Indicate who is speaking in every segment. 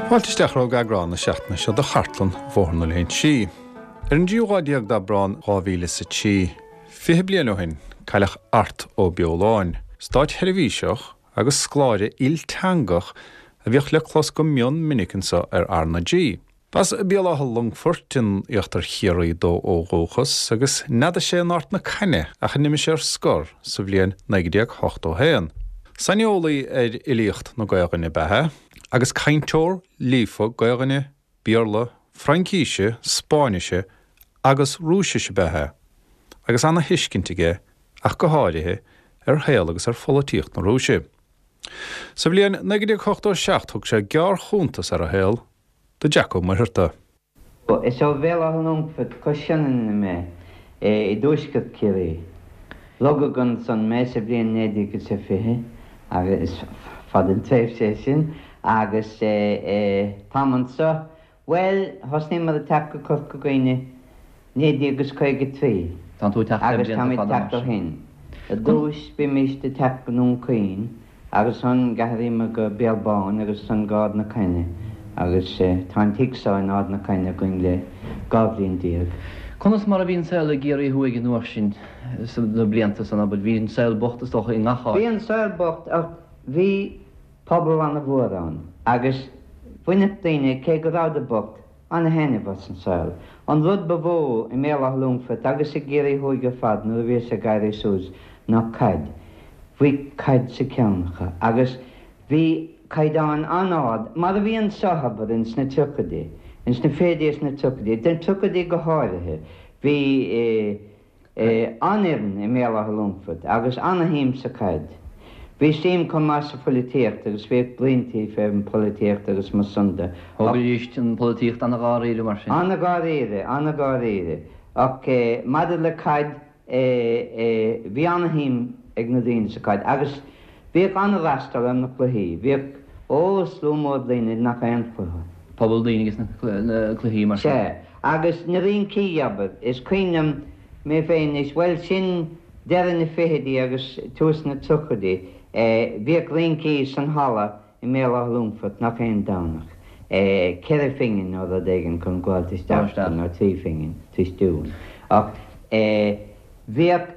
Speaker 1: Fáilte isteach romhaibh go eagrán na seachtaine seo de Chartlann Bhóthar na Léinsí. Ar an dtríú lá déag d'Aibreán 2003, 20 bliain ó shin, cailleadh Art Ó Beoláin, stáitsheirbhíseach agus scoláire ilteangach a bhíodh le clos go mion minic anseo ar R na G. B'as Béal Átha Longfoirt in íochtar Chiarraí dó ó dhúchas agus neadaigh sé in Ard na Caithne ach a n-imigh sé ar scor sa bhliain 1981. Saineolaí ar fhilíocht na Gaelainne ab ea é agus cainteoir líofa Gaelainne, Béarla, Fraincíse, Spáinnise agus Rúisise ab ea é agus ana-thuiscint aige ach go háirithe ar shaol agus ar pholaitíocht na Rúise. Sa bhliain 1987 thug sé gearrchuntas ar a shaol do Jack Ó Muircheartaigh.
Speaker 2: Is ó Bhéal Átha Longfoirt, cois Sionainne mé, i dtuaisceart Chiarraí. Rugadh ansan mé sa bhliain 1920, agus is fada an tréimhse é sin, agus táim anso Bhuel, thosnaíomar ag teacht go Corca Dhuibhne 1953
Speaker 3: Tánn tú ag teacht le
Speaker 2: agus
Speaker 3: blianta
Speaker 2: táimid
Speaker 3: fada
Speaker 2: ag
Speaker 3: mar
Speaker 2: teacht ó
Speaker 3: sin.
Speaker 2: shin. I dtús bhímist ag teacht go nDún Chaoin agus ansan d'athraíomar go Béal Bán agus ansan go Ard na Caithne agus tá an tigh seo in Ard na Caithne againn le 12 bhliain.
Speaker 3: Conas mar a bhí an saol i gCiarraí Thuaidh an uair sin, sna blianta san, abair? Bhí an saol bocht is dócha i ngach áit.
Speaker 2: Bhí an saol bocht ach bhí pobal ana-mhór ann agus bhaineadh daoine, cé go rabhadar bocht, ana-thaitneamh as an saol. An rud ba mhó i mBéal Átha Longfoirt agus i gCiarraí Thuaidh ar fad nuair a bhíos ag éirí suas ná caid. Bhí caid sa cheann acu agus bhí caighdeán an-ard, mar a bhí anso, abair, ins na tríochaidí, ins na fichidí is na tríochaidí, na tríochaidí go háirithe, bhí. An-fhoireann i mBéal Átha Longfoirt agus ana-shuim sa chaid. Bhí suim chomh maith sa pholaitíocht agus bhíodh bruíontaí fén bpolaitíocht agus mar san de.
Speaker 3: Thógaidís an pholaitíocht ana-dháiríre mar sin.
Speaker 2: Ana-dháiríre, ana-dháiríre. Ach maidir le caid, bhí ana-shuim ag na daoine sa chaid agus bhíodh ana-fhreastal ar na cluichí. Bhíodh, ó, slua mór daoine ag ngach aon chluiche.
Speaker 3: Pobal daoine ag na cluichí mar sin.
Speaker 2: Sea. Agus na rincí, abair. Is cuimhin liom mé féin anois, bhuel, sin deireadh na fichidí agus tús na tríochaidí, bhíodh rincí san halla i mBéal Átha Longfoirt ngach aon Domhnach, ceithre phingin nó rud éigin chun gabháilt isteach, nó trí phingin, trístiún. Ach bhíodh.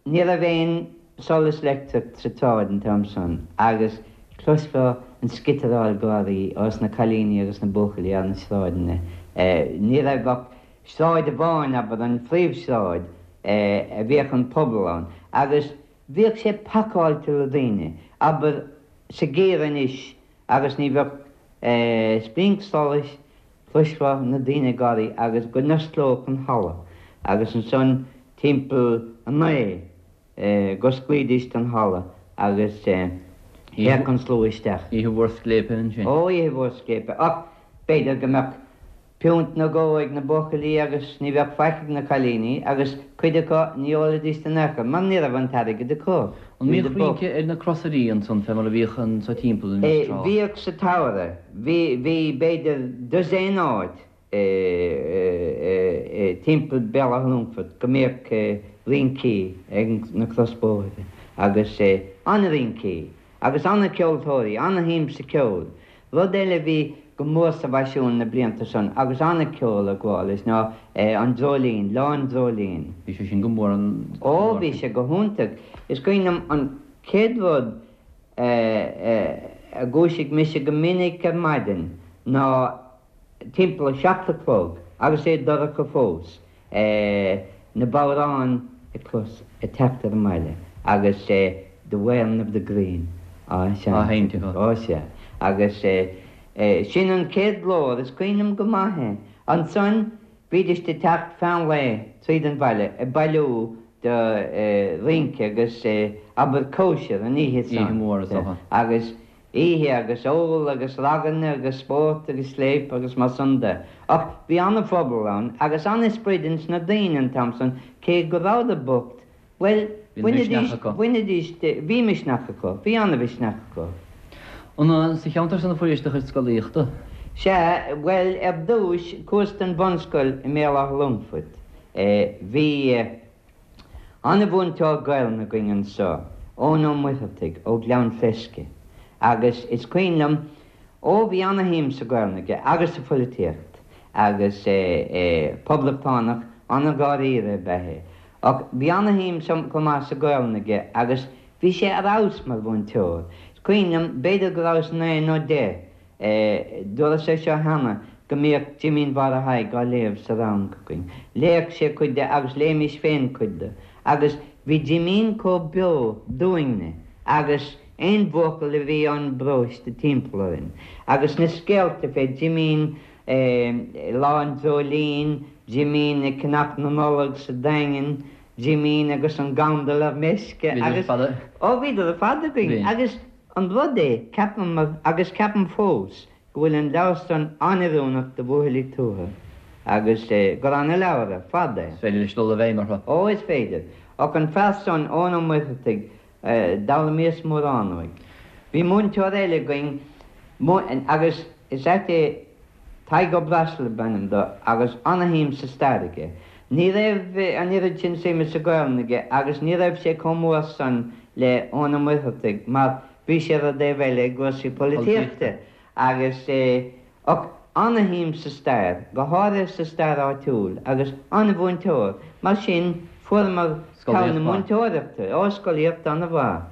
Speaker 2: Ní raibh aon solas leictreach sa tsráid an t-am san agus chloisfeá an sciotaráil gáirí ós na cailíní agus na buachaillí ar na sráideanna. Ní raibh ach sráid amháin, abair, an phríomhshráid, a bhíodh an pobal ann agus bhíodh sé pacáilte le daoine, abair, sa gheimhreadh anois agus ní bheadh splinc solais, chloisfeá na daoine ag gáirí agus go n-osclódh an halla agus ansan timpeall a naoi dh'osclaídís an halla agus théadh an slua isteach.
Speaker 3: Oíche mhór scléipe ansin.
Speaker 2: Ó, oíche mhór scléipe. Ach b'fhéidir go mbeadh piúnt nó dhó ag na buachaillí agus ní bheadh faic ag na cailíní agus cuid acu ní ólfaidís in aon chor mar ní raibh an t-airgead acu.
Speaker 3: An mbíodh rince ar na crosairí ansan fé mar a bhíodh anso timpeall anois tráth?
Speaker 2: Bhíodh sa tsamhradh. Bhí, bhí b'fhéidir dosaen áit timpeall Béal Átha Longfoirt go mbíodh rincí ag na crosbhóithre agus an-rincí agus an-cheoltóirí, an-shuim sa cheol. Rud eile a bhí go mór sa bhfaisiún na blianta san agus an-cheol ag gabháil leis ná an dreoilín, Lá an Dreoilín.
Speaker 3: Bhí sé sin go mór an
Speaker 2: Ó, bhí sé go hiontach. Is cuimhin liom an chéad rud a dhúisigh mise go minic ar maidin ná timpeall a seacht a chlog agus é dorcha fós. na bodhráin a chlos ag teacht ar an mbaile agus The Wearing of the Green á seinnt acu. Ó sea. Agus sin an chéad ghlór, is cuimhin liom go maith é. Ansan bhídís ag teacht feadh an lae tríd an bhaile ag bailiú do rince agus abair cóisir an oíche san.
Speaker 3: Oíche mhór is dócha.
Speaker 2: Agus Oíche agus ól agus raganna agus spórt agus scléip agus mar san de. Ach bhí an-phobal ann agus an-sprid ins na daoine an t-am san cé go rabhadar bocht. Bhuel,
Speaker 3: Bhí an misneach acu.
Speaker 2: bhainidís, bhí misneach acu, bhí an-mhisneach acu.
Speaker 3: An sa cheantar san a fuairis do chuid scolaíochta?
Speaker 2: Sea, bhuel, ar dtúis, chuas don bhunscoil i mBéal Átha Longfoirt. Bhí an-mhúinteoir Gaelainne againn anso, Eoin Ó Muircheartaigh ó Ghleann Fleisce, agus is cuimhin liom, ó bhí ana-shuim sa Ghaelainn aige agus sa phoilitíocht agus poblachtánach an-dháiríre ab ea é. Ach bhí ana-shuim chomh maith sa Ghaelainn aige agus bhí sé ar fheabhas mar mhúinteoir. Is cuimhin liom, b'fhéidir go rabhas naoi nó deich, dúras é seo cheana, go mbíodh Jimín Mháire Thaidhg á léamh sa rang againn. Léadh sé cuid de agus léimis féin cuid de. Agus bhí Jimín chomh beo dúinne agus aon bhuachaill a bhí ón bparóiste timpeall orainn. Agus na scéalta fé Jimín Lá an Dreoilín, Jimín ag ceannach na Nollag sa Daingean, Jimín agus an gandal ar meisce agus, ó bhíodar ar fad againn agus an rud é, ceapaim, agus ceapaim fós, go bhfuil an leabhar san an-oiriúnach do bhuachaillí tuaithe agus gur ana-leabhar ar fad é.
Speaker 3: Is féidir leis dul i bhfeidhm orthu.
Speaker 2: Ó, is féidir. Ach an fear san, Eoin Ó Muircheartaigh, D'fhoghlaimíos mórán uaidh. Bhí múinteoir eile againn agus is ait é, Tadhg Ó Breasail ab ainm do agus ana-shuim sa stair aige. Ní raibh an oiread sin suime sa Ghaelainn aige agus ní raibh sé chomh mór san le Eoin Ó Muircheartaigh mar bhí sé ar an dtaobh eile i gcúrsaí polaitíochta agus ach ana-shuim sa stair, go háirithe sa stair áitiúil, agus ana-mhúinteoir. Mar sin, fuaireamar togha na múinteoireachta. Ó, scolaíocht ana-mhaith.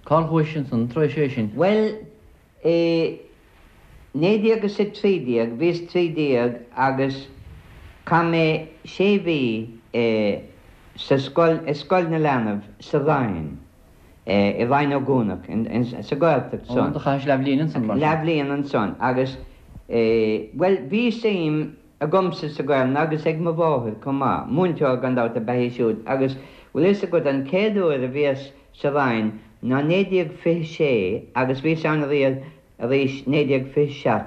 Speaker 3: Cár chuais ansan tar éis é sin?
Speaker 2: Bhuel, i 1913, bhíos 13 agus chaith mé sé mhí sa scoil, i Scoil na Leanbh sa Rinn. i Rinn Ó gCuanach, sa Ghaeltacht
Speaker 3: san. Ó, do chaithis leathbhliain ansan, mar
Speaker 2: sin. Leathbhliain ansan agus, bhuel, bhí suim agamsa sa Ghaelainn agus ag mo mháthair chomh maith, múinteoir gan dabht ab ea í siúd agus, bhfuil fhios agat, an chéad uair a bhíos sa Rinn ná 1926 agus bhíos ann arís 1927,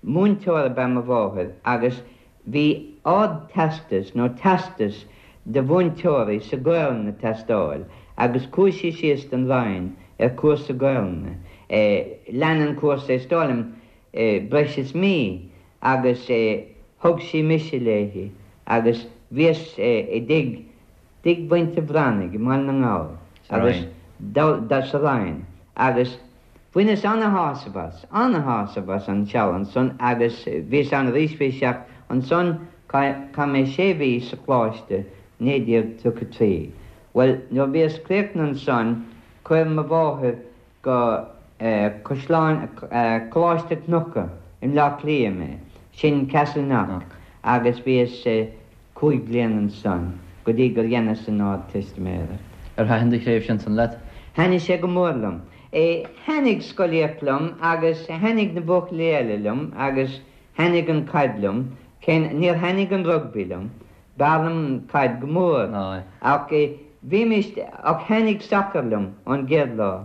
Speaker 2: múinteoir ab ea mo mháthair agus Bhí Ard-Teastas nó Teastas do mhúinteoirí sa Ghaelainn ag teastáil agus chuaigh sí síos don Rinn ar chúrsa Gaelainne. Lean an cúrsa, is dóigh liom, breis is mí agus thug sí mise léi agus bhíos i dtigh dtigh mhuintir Bhreathnaigh i mBaile na nGall agus sa Rinn agus Bhaineas ana-shásamh as, ana-shásamh as an seal ansan agus bhíos ann arís 27 ansan chaith mé sé mhí sa choláiste 1933. Bhuel, nuair a bhíos críochnaithe ansan chuir mo mháthair go Caisleán, Coláiste Cnucha i mBleá Cliath mé, sin Castleknock, agus bhíos 5 bliana ansan go dtí gur dheineas an Ardteistiméireacht.
Speaker 3: Ar thaitin do thréimhse ansan leat?
Speaker 2: Thaitnigh sé go mór liom. Thaitnigh scolaíocht liom agus thaitnigh na buachaillí eile liom agus thaitnigh an caid liom. Cé níor thaitnigh an rugbaí liom. B'fhearr liom an caid go mór. Ach bhímis, ach thaitnigh sacar liom ón gcéad lá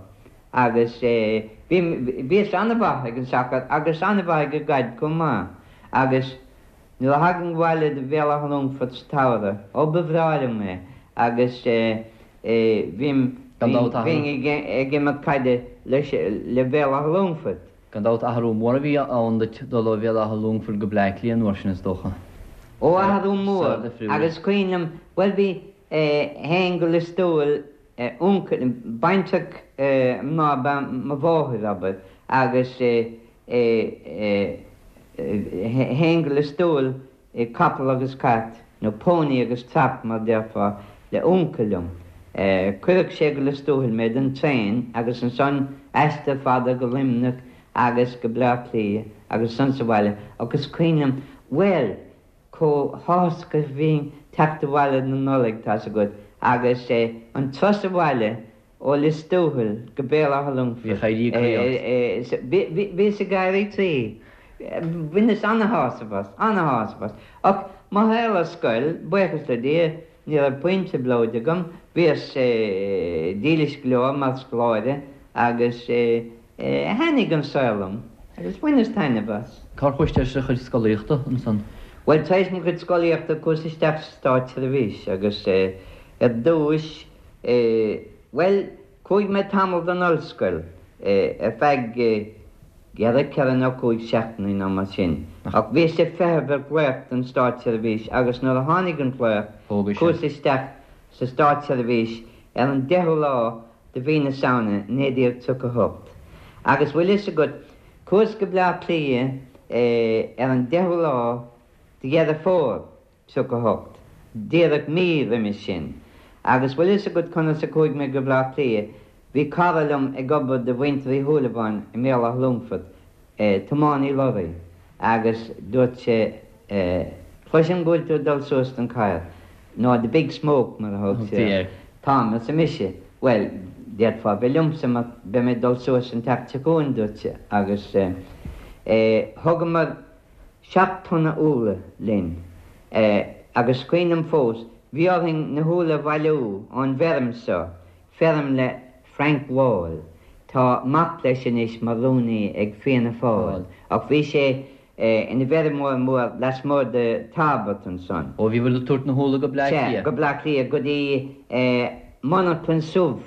Speaker 2: agus bhí, bhíos an-mhaith ag an sacar agus an-mhaith ag an gcaid chomh maith agus Nuair a thagainn abhaile do Bhéal Átha Longfoirt sa tsamhradh, ó ba bhreá liom é agus bhím, bhínn ag imirt caide leis, le Béal Átha Longfoirt.
Speaker 3: Gan dabht athrú mór a bhí ann duit dul ó Bhéal Átha Longfoirt go Bleá Cliath an uair sin is dócha.
Speaker 2: Ó athrú mór agus cuimhin liom, bhuel bhí, théinn go Lios Tuathail, uncail, baintreach mná ab ea mo mháthair, abair, agus théinn go Lios Tuathail i capall agus cairt, nó pony agus trap mar déarfá, le uncail liom. Cuireadh sé go Lios Tuathail mé den traein agus ansan aistear fada go Luimneach agus go Bleá Cliath agus ansan sa bhaile agus cuimhin liom, bhuel, chomh háthasach a bhínn teacht abhaile na Nollaig, tá's agat, agus an turas abhaile ó Lios Tuathail go Béal Átha Longfoirt, bhíos ag éirí croí. Bhaineas ana-shásamh as, ana-shásamh as. Ach mo shaol ar scoil, buíochas le Dia, ní raibh puinn trioblóid agam, bhíos dílis go leor mar scoláire agus Thaitnigh an saol liom agus bhaineas taitneamh as.
Speaker 3: Cár chuais tar éis do chuid scolaíochta ansan?
Speaker 2: Bhuel, tar éis mo chuid scolaíochta chuas isteach sa státseirbhís agus ar dtúis. Bhuel, chuaigh mé tamall don ollscoil, ar feadh ceithre nó cúig seachtainí nó mar sin. Ach bhíos ag feitheamh ar ghlaoch don státseirbhís agus nuair a tháinig an glaoch, chuas isteach sa státseirbhís ar an deichiú lá de mhí na Samhna 1938. Agus bhfuil fhios agat, chuas go Bleá Cliath ar an deichiú lá de Dheireadh Fómhair 38, díreach mí roimis sin. Agus bhfuil fhios agat conas a chuaigh mé go Bleá Cliath? Bhí cara liom ag obair do mhuintir Uí Shúilleabháin i mBéal Átha Longfoirt, tiománaí lorraí, agus dúirt sé, Cloisim go bhfuil tú ag dul suas don chathair, nó the big smoke mar a thug sé air. Táim, arsa mise. Bhuel, d'fhéadfá bheith liomsa mar beidh mé ag dul suas an tseachtain seo chugainn, dúirt sé. Agus thugamar. 7 tonna úlla linn. Agus cuimhin liom fós, bhí orainn na húlla a bhailiú ón bhfeirm seo, feirm le Frank Wall. Tá mac leis anois mar rúnaí ag Fianna Fáil, ach bhí sé ina bhfeirmeoir mór lasmuigh de Tarbert ansan.
Speaker 3: Ó, bhíobhair ag tabhairt na húlla go Bleá
Speaker 2: Cliath? Sea, go Bleá Cliath, go dtí monarchan subh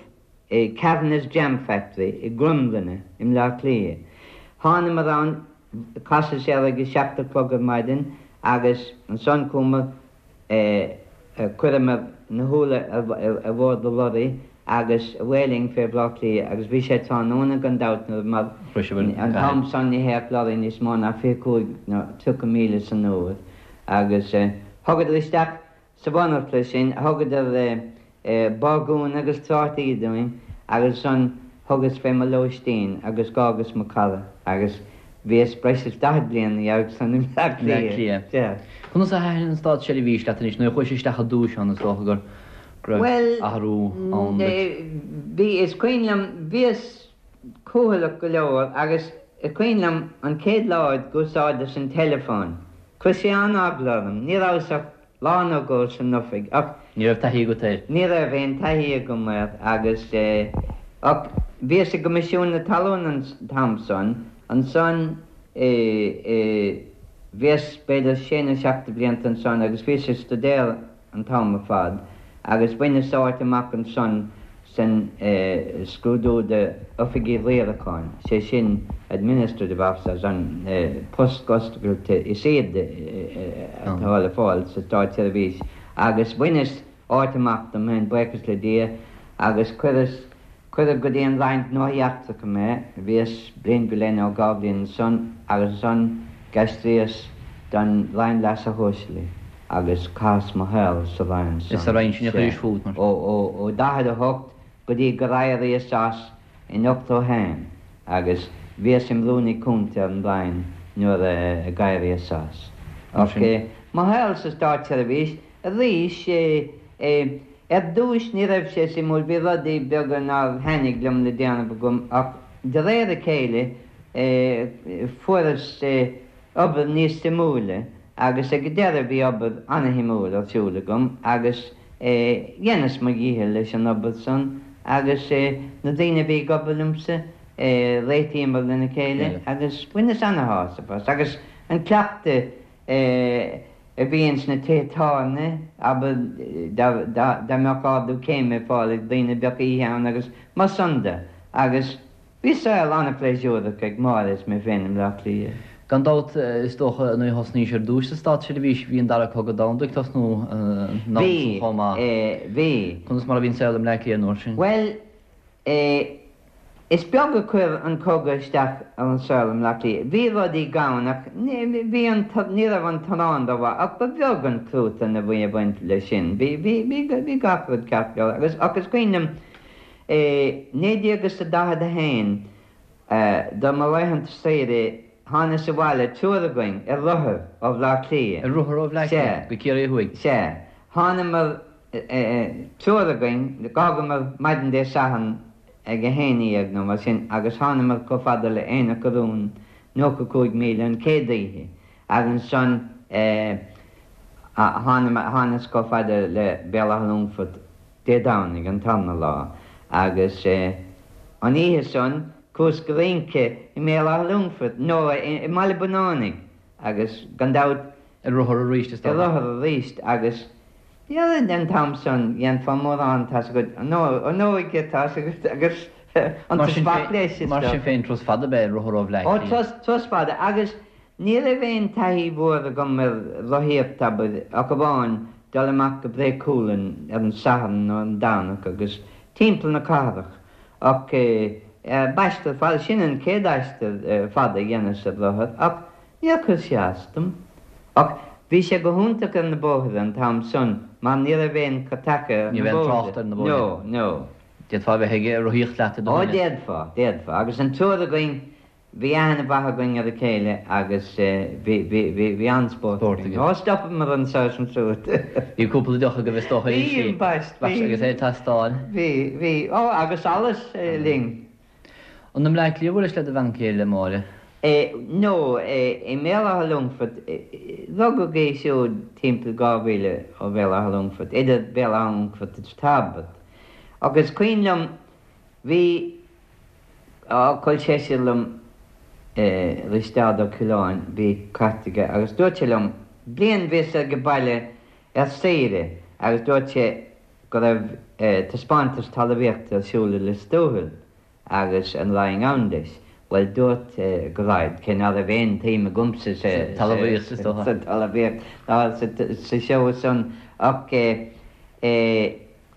Speaker 2: Kavanagh's Jam Factory i gCromghlinne i mBleá Cliath. Thánamar ann, chasadh sé air ag a seacht a chlog ar maidin agus ansan chuamar, chuireamar na húlla ar bhord an lorry agus away linn fé Bhleá Cliath agus bhí sé tráthnóna gan dabht nuair mar an t-am san ní théadh lorry níos mó ná 25 nó 30 míle san uair agus thugadar isteach Sa mhonarcha sin thugadar bagún agus trátaí dúinn agus ansan thugas fé mo lóistín agus dh'fhágas mo chara agus bhíos breis is 40 bliain ina dhiaidh san i mBleá
Speaker 3: Cliath. Sea. Conas a thaitin an státseirbhís leat anois? Nuair a chuais isteach ar dtúis ann is dócha go raibh athrú ann
Speaker 2: duit. Bhuel, bhí, is cuimhin liom, bhíos cúthaileach go leor agus is cuimhin liom an chéad lá a d'úsáideas an teileafón, chuir sé an-eagla orm, ní rabhas ach lá nó dhó san oifig ach.
Speaker 3: Ní raibh taithí agat air?
Speaker 2: Ní raibh aon taithí agam air agus eh ach bhíos i gCoimisiún na Talún an t-am san, ansan eh eh bhíos b'fhéidir sé nó seacht de bhlianta ansan agus bhíos ag stuidéar an t-am ar fad agus bhaineas áit amach ansan san scrúdú d'oifigigh riaracháin, sé sin administrative officers, an post oscailte is airde atá le fáil sa státseirbhís, agus bhaineas áit amach dom féin, buíochas le Dia, agus cuireas, cuireadh go dtí an Roinn Gnóthaí Eachtracha mé, bhíos bliain go leith nó dhá bhliain ansan agus ansan d'aistríos don Roinn Leasa Shóisialaigh. agus chaitheas mo shaol sa Roinn
Speaker 3: san. Is sa Roinn sin a chuiris fút,
Speaker 2: mar. Ó 48 go dtí gur éiríos as in 81 agus bhíos im Rúnaí Cúnta ar an Roinn nuair a d'éiríos as. Ach mo shaol sa státseirbhís arís, ar dtúis ní raibh sé suimiúil, bhí rudaí beaga nár thaitnigh liom le déanamh agam ach de réir a chéile fuaireas obair níos suimiúla agus ag an deireadh bhí obair ana-shuimiúil ar siúl agam agus dheineas mo dhícheall leis an obair san agus na daoine a bhí ag obair liomsa réitíomar lena chéile agus bhaineas ana-shásamh as agus an cleachtadh a bhí ins na tithe tábhairne, abair dá mbeadh ardú céime ar fáil ag daoine bheadh oíche ann agus mar san de agus Bhí saol an-phléisiúrach ag Máire is mé féin i mBleá Cliath.
Speaker 3: Gan dabht, is dócha, nuair a thosnaís ar dtúis sa státseirbhís, bhí an Dara Cogadh Domhanda ag tosnú an am
Speaker 2: san chomh maith. Bhí, bhí.
Speaker 3: Conas mar a bhí an saol i mBleá Cliath an uair sin?
Speaker 2: Bhuel, eh, is beag a chuir an cogadh isteach ar an saol i mBleá Cliath. Bhí rudaí gann ach bhí an, ní raibh an t-arán rómhaith ach ba bheag an cruatan a bhí ag baint leis sin. Bhí, bhí, bhí, bhí gach rud ceart go leor agus, ach is cuimhin liom, I 1941, do mo laethanta saoire, thánas abhaile, triúr againn, ar rothair ó Bhleá
Speaker 3: Cliath. Ar rothar ó Bhleá Cliath go Ciarraí Thuaidh?
Speaker 2: Sea. Thánamar, triúr againn, d'fhágamar maidin Dé Sathairn ag a haon dhéag nó mar sin agus thánamar chomh fada le Aonach an Rúin, 95 míle, an chéad oíche agus ansan thánamar, thánas chomh fada le Béal Átha Longfoirt, Dé Domhnaigh, an tarna lá, agus an oíche san chuas go rince i mBéal Átha Longfoirt, nó i mBaile Bunánaigh, agus gan dabht.
Speaker 3: Ar rothar arís, is
Speaker 2: dócha. Ar rothar arís, agus. Níl an t-am san dhéanfá mórán, tá's agat, an óige, tá's agat, agus an tobac leis, is
Speaker 3: Mar sin féin, turas fada ab ea rothar ó Bhleá
Speaker 2: Ó, Cliath. turas fada, agus ní raibh aon taithí mhór agam ar rothaíocht, abair, ach amháin dul amach go Bré Cualann ar an Satharn nó ar an Domhnach agus timpeall na cathrach, ach b'aistear fada, sin an chéad aistear fada a dheineas ar rothar, ach Níor chuir sé as dom. Ach bhí sé go hiontach ar na bóithre an t-am san mar ní raibh aon chur taca ar
Speaker 3: Ní
Speaker 2: na
Speaker 3: raibh aon
Speaker 2: bóithre.
Speaker 3: trácht ar na bóithre.
Speaker 2: No, no.
Speaker 3: D'fhéadfá a bheith ag rothaíocht leat i do
Speaker 2: Ó,
Speaker 3: dhuine.
Speaker 2: d'fhéadfá, d'fhéadfá. Agus an triúr againn, bhí aithne mhaith againn ar a chéile agus bhí, bhí, bhí, bhí an-spórt
Speaker 3: Spórt
Speaker 2: againn.
Speaker 3: agaibh.
Speaker 2: Ó, stopamar anso is ansúd.
Speaker 3: Bhí cúpla deoch agaibh is dócha
Speaker 2: Bhí,
Speaker 3: inti.
Speaker 2: ambaist, bhí.
Speaker 3: Agus é ag teastáil.
Speaker 2: Bhí, bhí. Ó, agus allas linn.
Speaker 3: An i mBleá Cliath a bhuailis le do bhean chéile, Máire?
Speaker 2: No, i mBéal Átha Longfoirt. Rugadh í siúd timpeall 2 mhíle ó Bhéal Átha Longfoirt, idir Béal Átha Longfoirt is Tairbeart. Ach is cuimhin liom, bhí, á, col seisear liom, Risteárd Ó Coileáin, bhí cairt aige agus dúirt sé liom, bliain bhíos age baile ar saoire agus dúirt sé, go raibh taispeántas talmhaíochta ar siúl i Lios Tuathail agus an raghainn ann leis. Bhuel, dúirt go raghad, cé ná raibh aon tsuim agamsa sa
Speaker 3: talmhaíocht, is dócha.
Speaker 2: sa talmhaíocht ná sa seó san ach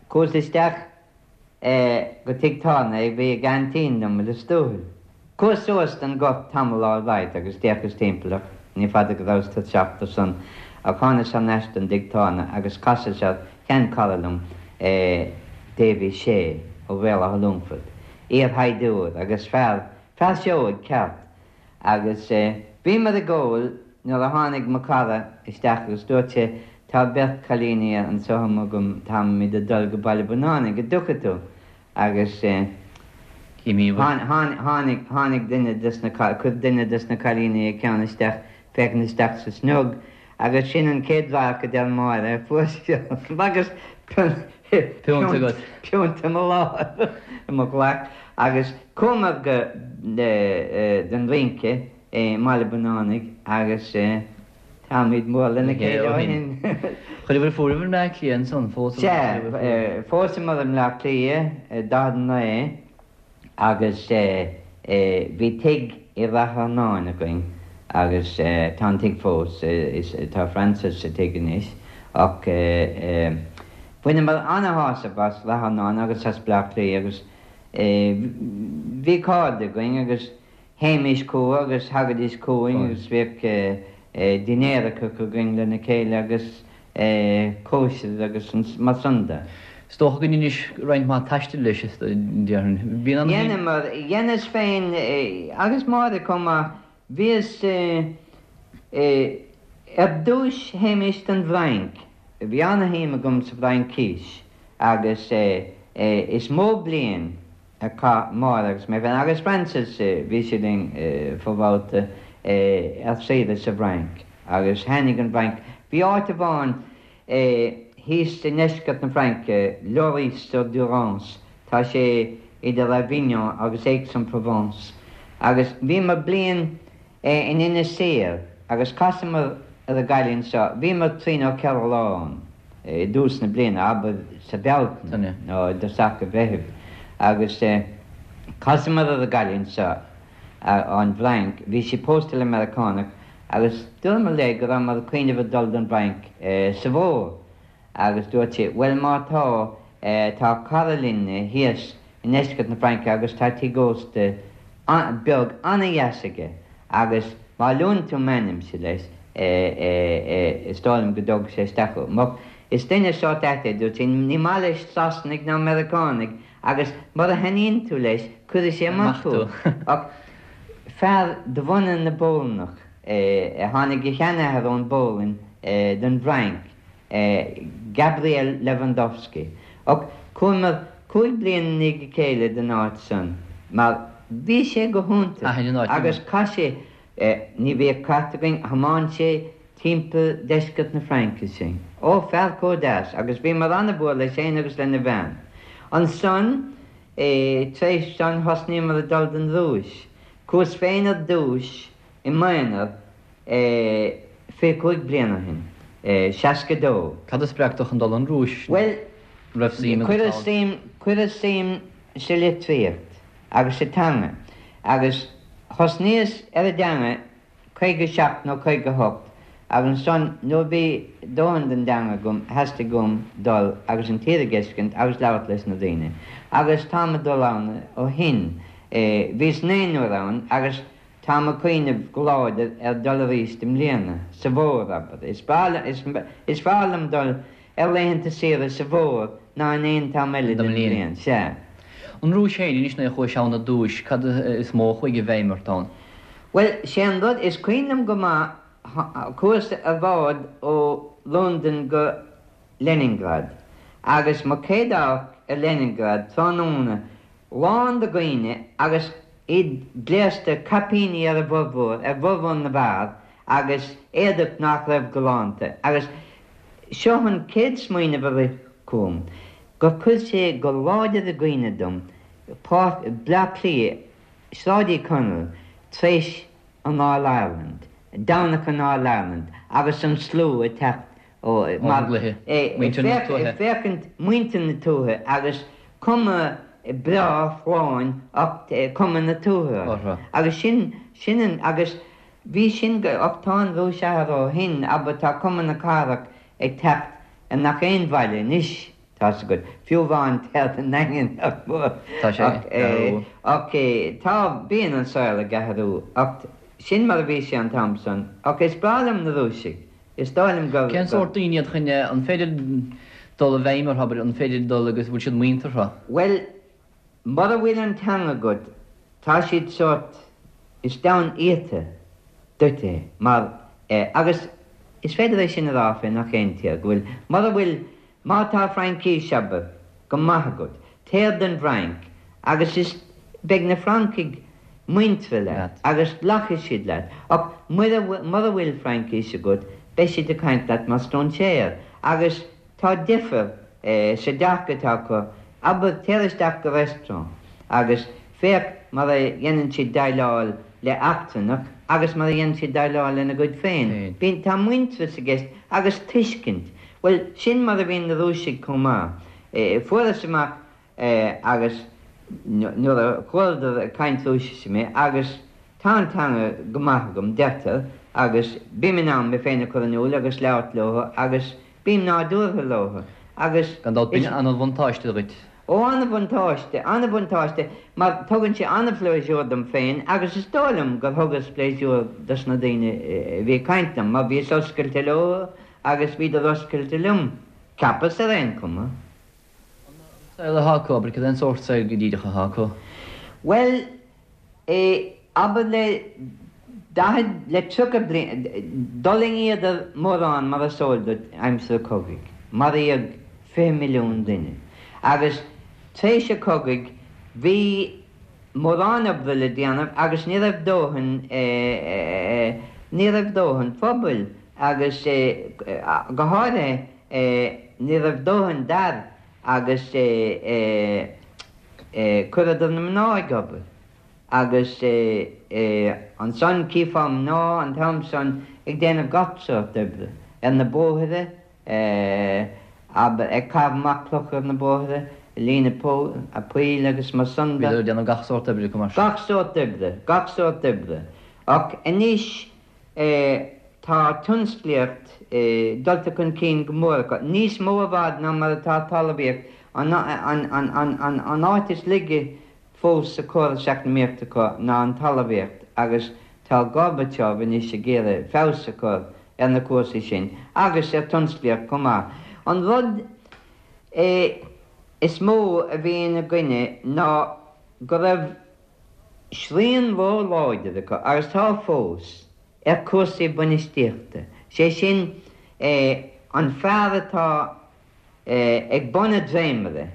Speaker 2: chuas isteach go tigh tábhairne a bhí ag aintín liom i Lios Tuathail. Chuas suas don ghort tamall alright agus d'fhéachas timpeall ach ní fada go rabhas tuirseach de san ach thánas thar n-ais don dtigh tábhairne agus chasas ar shean-chara liom, Davy Shea ó Bhéal Átha Longfoirt, iar-shaighdiúir agus fear, fear seoigh ceart. Agus bhíomar ag ól nuair a tháinig mo chara isteach agus dúirt sé tá beirt chailíní anso amuigh agam, táimid ag dul go Baile Bunánaigh, an dtiocfaidh tú? Agus tháinig, tháinig duine des na, chuir duine des na cailíní a ceann isteach, féachaint isteach sa sneog agus sin an chéad radharc a deir Máire a fuair sí orm agus
Speaker 3: Piúnt agat.
Speaker 2: piúnt i mo láimh, i mo ghlac agus chuamar go don rince i mBaile Bunánaigh agus táimid mór lena chéile ó shin.
Speaker 3: Chuireabhair fúibh i mBleá Cliath ansan,
Speaker 2: phósamar. Sea, phósamar i mBleá Cliath i 49. Agus bhí tigh i Rath Earnáin againn agus tá an tigh fós, tá Frances sa tigh anois ach bhaineamar ana-shásamh as Rath Earnáin agus as Bleá Cliath agus bhí cairde againn agus Théimis chucu agus thagaidís chugainn agus bhíodh dinnéaracha againn lena chéile agus cóisir agus mar san de.
Speaker 3: Is dócha go ndeinis roinnt mhaith taistil leis, déarfainn.
Speaker 2: Bhíonn an. Dheineamar, dheineas féin agus Máire chomh maith. Bhíos, ar dtúis théimis don bhFrainc. Bhí ana-shuim agam sa bhFraincís agus is mó bliain a chaith Máire agus mé féin, agus Frances, bhí sí linn fo-bhabhta, ar saoire sa bhFrainc agus thaitnigh an Fhrainc. Bhí áit amháin thíos i ndeisceart na Fraince, Lauris-sur-Durance, tá sé idir Avignon agus Aix-en-Provence, agus bhíomar bliain in Inis Oírr agus chasamar ar an gcailín seo, bhíomar trí nó 4 lá ann. i dtús na bliana, abair sa Bhealtaine nó i dtosach an Mheithimh, agus chasamar ar an gcailín seo ón bhFrainc, bhí sí pósta le Meiriceánach, agus dúramar léi go rabhamar ag cuimhneamh ag dul don bhFrainc sa bhfómhar, agus dúirt sí, bhuel má tá, tá cara linne thíos i ndeisceart na Fraince agus tá tigh ósta beag an-dheas aige agus má luann tú m'ainmse leis is dóigh liom go dtógfaidh sé isteach thú. Mar is duine sórt ait é, dúirt sí, ní maith leis Sasanaigh ná Meiriceánaigh agus mura thaitníonn tú leis cuirfidh sé amach thú. Ach fear de bhunadh na bPolannach é, tháinig a sheanathair ón bPolainn don bhFrainc Gabriel Lewandowski. Ach chuamar 5 bliana i ndiaidh a chéile don áit san mar bhí sé go hiontach agus chaith sé, ní bhíodh cairt againn, thiomáin sé timpeall deisceart na Fraince sinn. Ó, fear chomh deas agus bhíomar ana-mhór leis fhéin agus lena bhean. Ansan, tar éis san thosnaíomar ag dul don Rúis. Chuas féin ar dtúis i m'aonar 25 bliain ó shin. 62.
Speaker 3: Cad a spreag tú chun dul an Rúis?
Speaker 2: Bhuel, cuireadh suim, cuireadh suim sa litríocht agus sa teanga agus thosnaíos ar an dteanga 57 nó 58 agus ansan nuair a bhí dóthain den dteanga agam theastaigh uaim dul agus an tír a dh'fheiscint agus labhairt leis na daoine agus táim ag dul ann ó shin. Bhíos naoi n-uair ann agus táim ag cuimhneamh go láidir ar dul arís i mbliana, sa bhfómhar, abair. Is breá, is fearr liom dul ar laethanta saoire sa bhfómhar ná in aon t-am eile den bhliain. Sea.
Speaker 3: An Rúis féin anois nuair a chuais ann ar dtúis, cad is mó a chuaigh i bhfeidhm ort ann?
Speaker 2: Bhuel, sé an rud, is cuimhin liom go maith, chuas ar bhád ó Londain go Leningrad agus mo chéad amharc ar Leningrad tráthnóna, lán de dhaoine agus iad gléasta, caipíní ar a bhformhór, ar bhformhór na bhfear agus éadach nach raibh galánta agus seo an chéad smaoineamh a rith chugam, gur chuir sé go láidir i gcuimhne dom Páirc Bleá Cliath, Sráid Uí Chonaill, tar éis an All Ireland, Domhnach an All Ireland agus an slua ag teacht ó
Speaker 3: mar muintir na tuaithe.
Speaker 2: Féachaint muintir na tuaithe agus cuma breá folláin ach cuma na tuaithe orthu. Agus sin, sin an, agus bhí sin go, ach tá an Rúis athraithe ó shin, abair tá cuma na cathrach ag teacht ar nach aon bhaile anois, tá's agat, fiú amháin téad i nDaingean nach mór.
Speaker 3: Tá sé ag athrú.
Speaker 2: Ach tá, bíonn an saol ag athrú ach sin mar a bhí sé an t-am san. Ach is breá liom na Rúisigh. Is dóigh liom
Speaker 3: gur. Cén sórt daoine iad chun, an féidir dul i bhfeidhm orthu, abair, an féidir dul agus bhfuil siad muinteartha?
Speaker 2: Bhuel, mura bhfuil an teanga agat, tá siad sórt, is domhan iata duit é, mar, eh, agus is féidir é sin a rá fé nach aon tír, go bhfuil, mura bhfuil, Má tá Fraincís, abair, go maith agat, téir don bhFrainc agus is beidh na Francaigh muinteartha leat agus glacfaidh siad leat ach mura bhfuil Fraincís agat beidh siad ag caint leat mar stróinséir agus tá difear sa dearcadh atá acu, abair, téir isteach go restaurant agus féach mar a dhéanann siad déileáil le eachtrannach agus mar a dhéanann siad déileáil lena gcuid féin. Bíonn, tá muintearas i gceist agus tuiscint. Bhuel, sin mar a bhíonn na Rúisigh chomh maith. Fuaireas amach agus nuair a chualadar ag caint Rúisise mé, agus tá an teanga go maith agam, deirtear, agus bím in ann mé féin a chur in iúl agus labhairt leo agus bím nádúrtha leo agus.
Speaker 3: Gan dabht, b'in an-bhuntáiste dhuit.
Speaker 2: Ó, an-bhuntáiste, an-bhuntáiste, mar tugann sé an-phléisiúr dom féin agus is dóigh liom gur thugas pléisiúr dos na daoine a bhí ag caint liom, mar bhíos oscailte leo Agus bhíodar oscailte liom, cheapas, ar aon chuma.
Speaker 3: An saol atá acu, abair, cad é an sórt saoil go díreach atá acu?
Speaker 2: Bhuel, eh, abair le daichead, le 30 bliain, d'fhulaingíodar mórán mar is eol duit aimsir an chogaidh, maraíodh 20 milliún duine. Agus tar éis an chogaidh bhí mórán oibre le déanamh agus ní raibh dóthain, eh, ní raibh dóthain pobail agus go háirithe ní raibh dóthain d'fhear agus chuireadar na mná ag obair agus ansan chífeá mná an t-am san ag déanamh gach sórt oibre ar na bóithre, abair, ag caitheamh amach clocha ar na bóithre, ag líonadh poill agus mar san
Speaker 3: de. Bhíodar ag déanamh gach sórt oibre
Speaker 2: acu mar sin. Gach sórt oibre, gach sórt oibre. Ach anois tá tionsclaíocht dulta chun cinn go mór acu, níos mó i bhfad ná mar atá talmhaíocht, an áit is laige fós sa chóras eacnamaíochta acu ná an talmhaíocht agus tá Gorbachev anois ag iarraidh feabhas a chur ar na cúrsaí sin agus ar tionsclaíocht chomh maith. An rud is mó a bhí ina gcoinne ná go raibh srian ró-láidir acu, agus tá fós, ar chúrsaí bainistíochta, sé sin an fear atá ag bun an dréimire,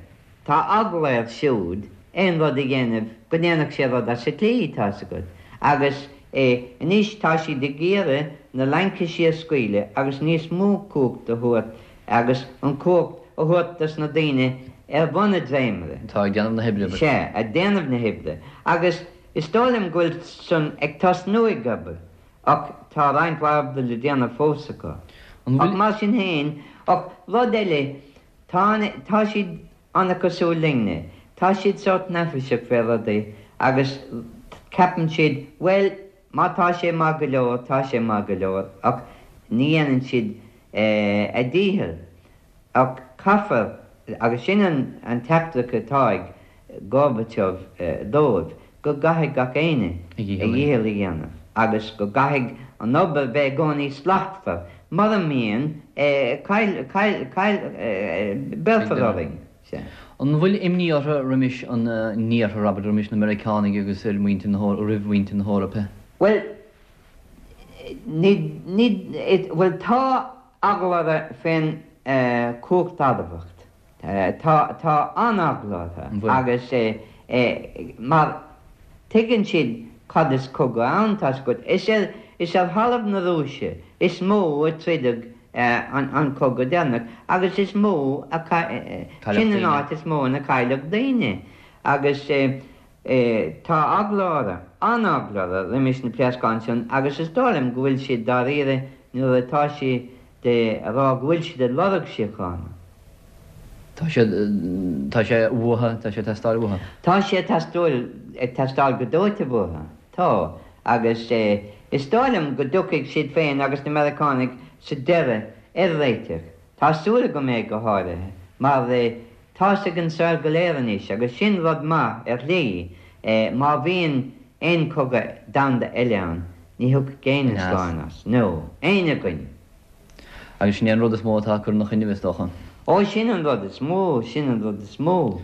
Speaker 2: tá eagla air siúd aon rud a dhéanamh go ndéanfadh sé rud as an tslí, tá's agat. Agus anois tá siad ag iarraidh na laincisí a scaoileadh agus níos mó cumhacht a thabhairt agus an chumhacht a thabhairt dos na daoine ar bhun an dréimire.
Speaker 3: Atá ag déanamh na hoibre.
Speaker 2: Sea, ag déanamh na hoibre. Agus is dóigh liom go bhfuil san ag tosnú ag obair. Ach tá roinnt mhaith oibre le déanamh fós acu. Ach mar sin féin, ach rud eile, tá, tá siad an-chosúil linne. Tá siad sórt neafaiseach fé rudaí agus ceapann siad, bhuel, má tá sé maith go leor, tá sé maith go leor, ach ní dhéanann siad a ndícheall. Ach caithfear, agus sin an teachtaireacht atá ag Gorbachev dóibh, go gcaithfidh gach éinne a dhícheall a dhéanamh agus go gcaithfidh an obair bheith i gcónaí slachtmhar. Mura mbíonn, béarfar orainn.
Speaker 3: Sea. An bhfuil imní orthu roimis an nIarthar, abair, roimis na Meiriceánaigh agus ar mhuintir na roimh mhuintir na hEorpa?
Speaker 2: Bhuel, ní, ní, bhuel tá eagla orthu fén chumhacht adamhach. Tá, tá an-eagla orthu agus mar tuigeann siad cad is cogadh ann, tá's agat. Is ar, is ar thalamh na Rúise is mó a troideadh an cogadh deireanach agus is mó a, sin an áit is mó ina cailleadh daoine agus tá eagla orthu, an-eagla orthu roimis na pléascáin sin agus is dóigh liom go bhfuil siad dáiríre nuair atá siad ag rá go bhfuil siad ag lorg síochána.
Speaker 3: Tá sé, tá sé uathu, tá sé ag teastáil uathu.
Speaker 2: Tá sé ag teastáil, ag teastáil go dóite uathu. Tá. Agus is dóigh liom go dtiocfaidh siad féin agus na Meiriceánaigh sa deireadh ar réiteach. Tá súil agam é go háirithe, mar tá's ag an saol go léir anois, agus sin rud maith ar shlí, má bhíonn aon chogadh domhanda eile ann, ní thiocfaidh éinne slán as. No. Éinne againn.
Speaker 3: Agus sin é an rud is mó atá ag cur ina choinnibh, is dócha.
Speaker 2: Ó, sin an rud is mó, sin an rud is mó.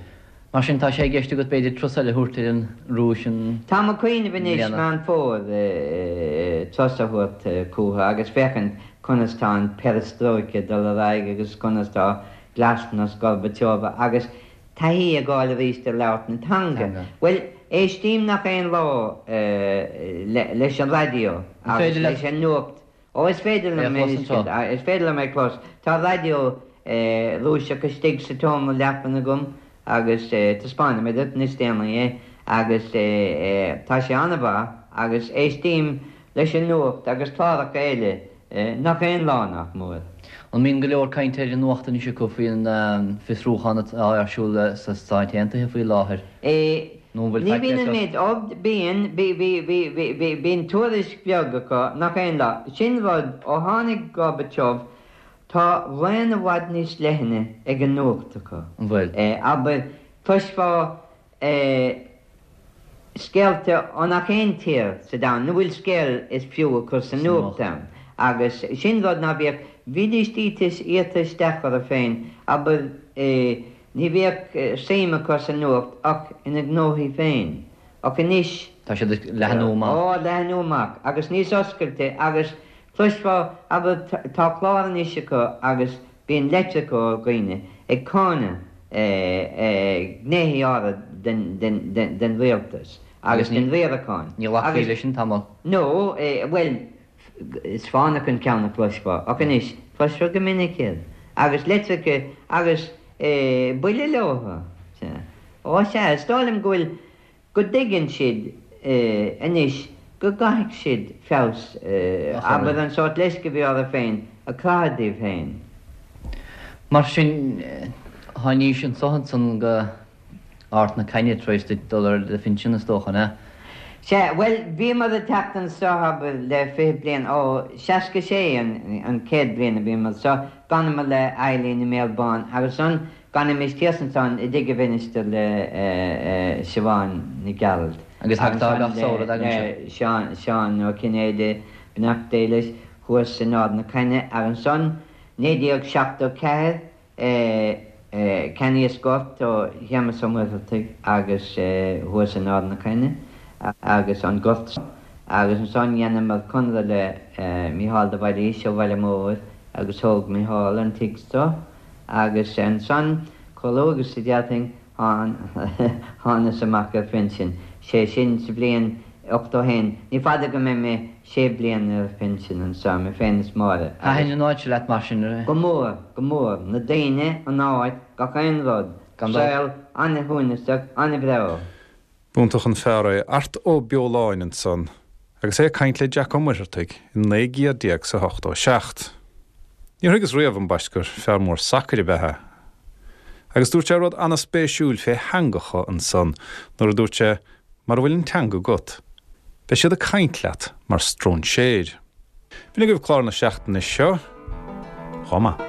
Speaker 3: Mar sin, tá sé i gceist agat, b'fhéidir, turas eile a thabhairt ar an Rúis
Speaker 2: an. Táim ag cuimhneamh anois, Meán Fómhair, turas a thabhairt chucu agus féachaint conas tá an perestrojka ag dul ar aghaidh agus conas tá glasnost Gorbacheva agus taithí a fháil arís ar labhairt na teanga. Bhuel, éistím nach aon lá leis an raidió agus leis an nuacht Ó, is féidir liom é a, is féidir liom é a chlos. Tá raidió Rúiseach istigh sa tseomra leapan agam agus taispeánfaidh mé duit níos déanaí é agus tá sé an-mhaith agus éistím leis an nuacht agus cláracha eile nach aon lá nach mór.
Speaker 3: An mbíonn go leor cainte ar an nuacht anois acu faoin bhfiosrúchán atá ar siúl sna Stáit Aontaithe faoi láthair?
Speaker 2: Nó an bhfuil Ní faic bhíonn an méid, ó, bíonn, bhí, bhí, bhí, bhí, bhí, bíonn tuairisc bheag acu, nach aon lá. Sin rud, ó tháinig Gorbachev, tá raon i bhfad níos leithne ag an nuacht acu.
Speaker 3: An bhfuil?
Speaker 2: Abair, cloisfeá scéalta ó nach aon tír sa domhan, ina bhfuil scéal is fiú a chur sa nuacht ann. Agus sin rud ná bíodh, bhídís iata isteach orthu féin, abair, Ní bhíodh suim acu sa nuacht ach ina ngnóthaí féin. Ach anois.
Speaker 3: Tá siad ag leathnú amach.
Speaker 2: Ó, leathnú amach agus níos oscailte agus cloisfeá, abair, tá clár anois acu agus bíonn litreacha ó dhaoine ag cáineadh gnéithe áirid den rialtas agus den riarachán.
Speaker 3: Ní ghlacfaí leis sin tamall.
Speaker 2: No, bhuel, Is fánach an ceann a chloisfeá, ach anois, cloisfeá go minic iad, agus litreacha agus buille leo. Sea. Ó, sea, is dóigh liom go bhfuil, go dtuigeann siad anois go gcaithfidh siad feabhas, abair, an sórt leisce a bhí orthu féin a chroitheadh díobh féin.
Speaker 3: Mar sin, tháinís anso ansan go. Ard na Caithne tar éis duit dul ar do phinsean, is dócha, an ea?
Speaker 2: Sea, bhuel, bhíomar ag teacht anso, abair, le 20 bliain, ó, 66 an chéad bhliain a bhíomar anso, d'fhanamar le Eileen i mBéal Bán agus ansan d'fanaimis thíos ansan i dtigh an mhinistir le Siobhán Nic Gearailt
Speaker 3: Agus tagtá gach samhradh
Speaker 2: agaibhse? le Seán, Seán Ó Cinnéide, beannacht Dé leis, thuas in Ard na Caithne agus ansan 1974, Cheannaíos gort ó Shéamus Ó Muircheartaigh agus thuas in Ard na Caithne agus an gort seo agus ansan dheineamar conradh le Mícheál de Bhailís ó Bhaile Móir agus thóg Mícheál an tigh seo agus ansan chomh luath agus a d'fhéadfainn thánas amach ar phinsean, sé sin sa bhliain 81. Ní fada go mbeidh mé sé bliana ar phinsean anseo, mé féin is Máire,
Speaker 3: agus. Thaitin an áit seo leat mar sin?
Speaker 2: Go mór, go mór. Na daoine, an áit, gach aon rud. Gan dabht. Saol an-shuaimhneasach, an-bhreá.
Speaker 1: B'iontach an fear é Art Ó Beoláin ansan agus é ag caint le Jack Ó Muircheartaigh i 19 gcéad is a 87. Níor thuigeas riamh ambaist gur fear mór sacair ab ea é. Agus dúirt sé rud ana-spéisiúil fé theangacha ansan nuair a dúirt sé mara bhfuil an teanga agat, beidh siad ag caint leat mar stróinséir. B'in agaibh clár na seachtaine seo. Chomh maith.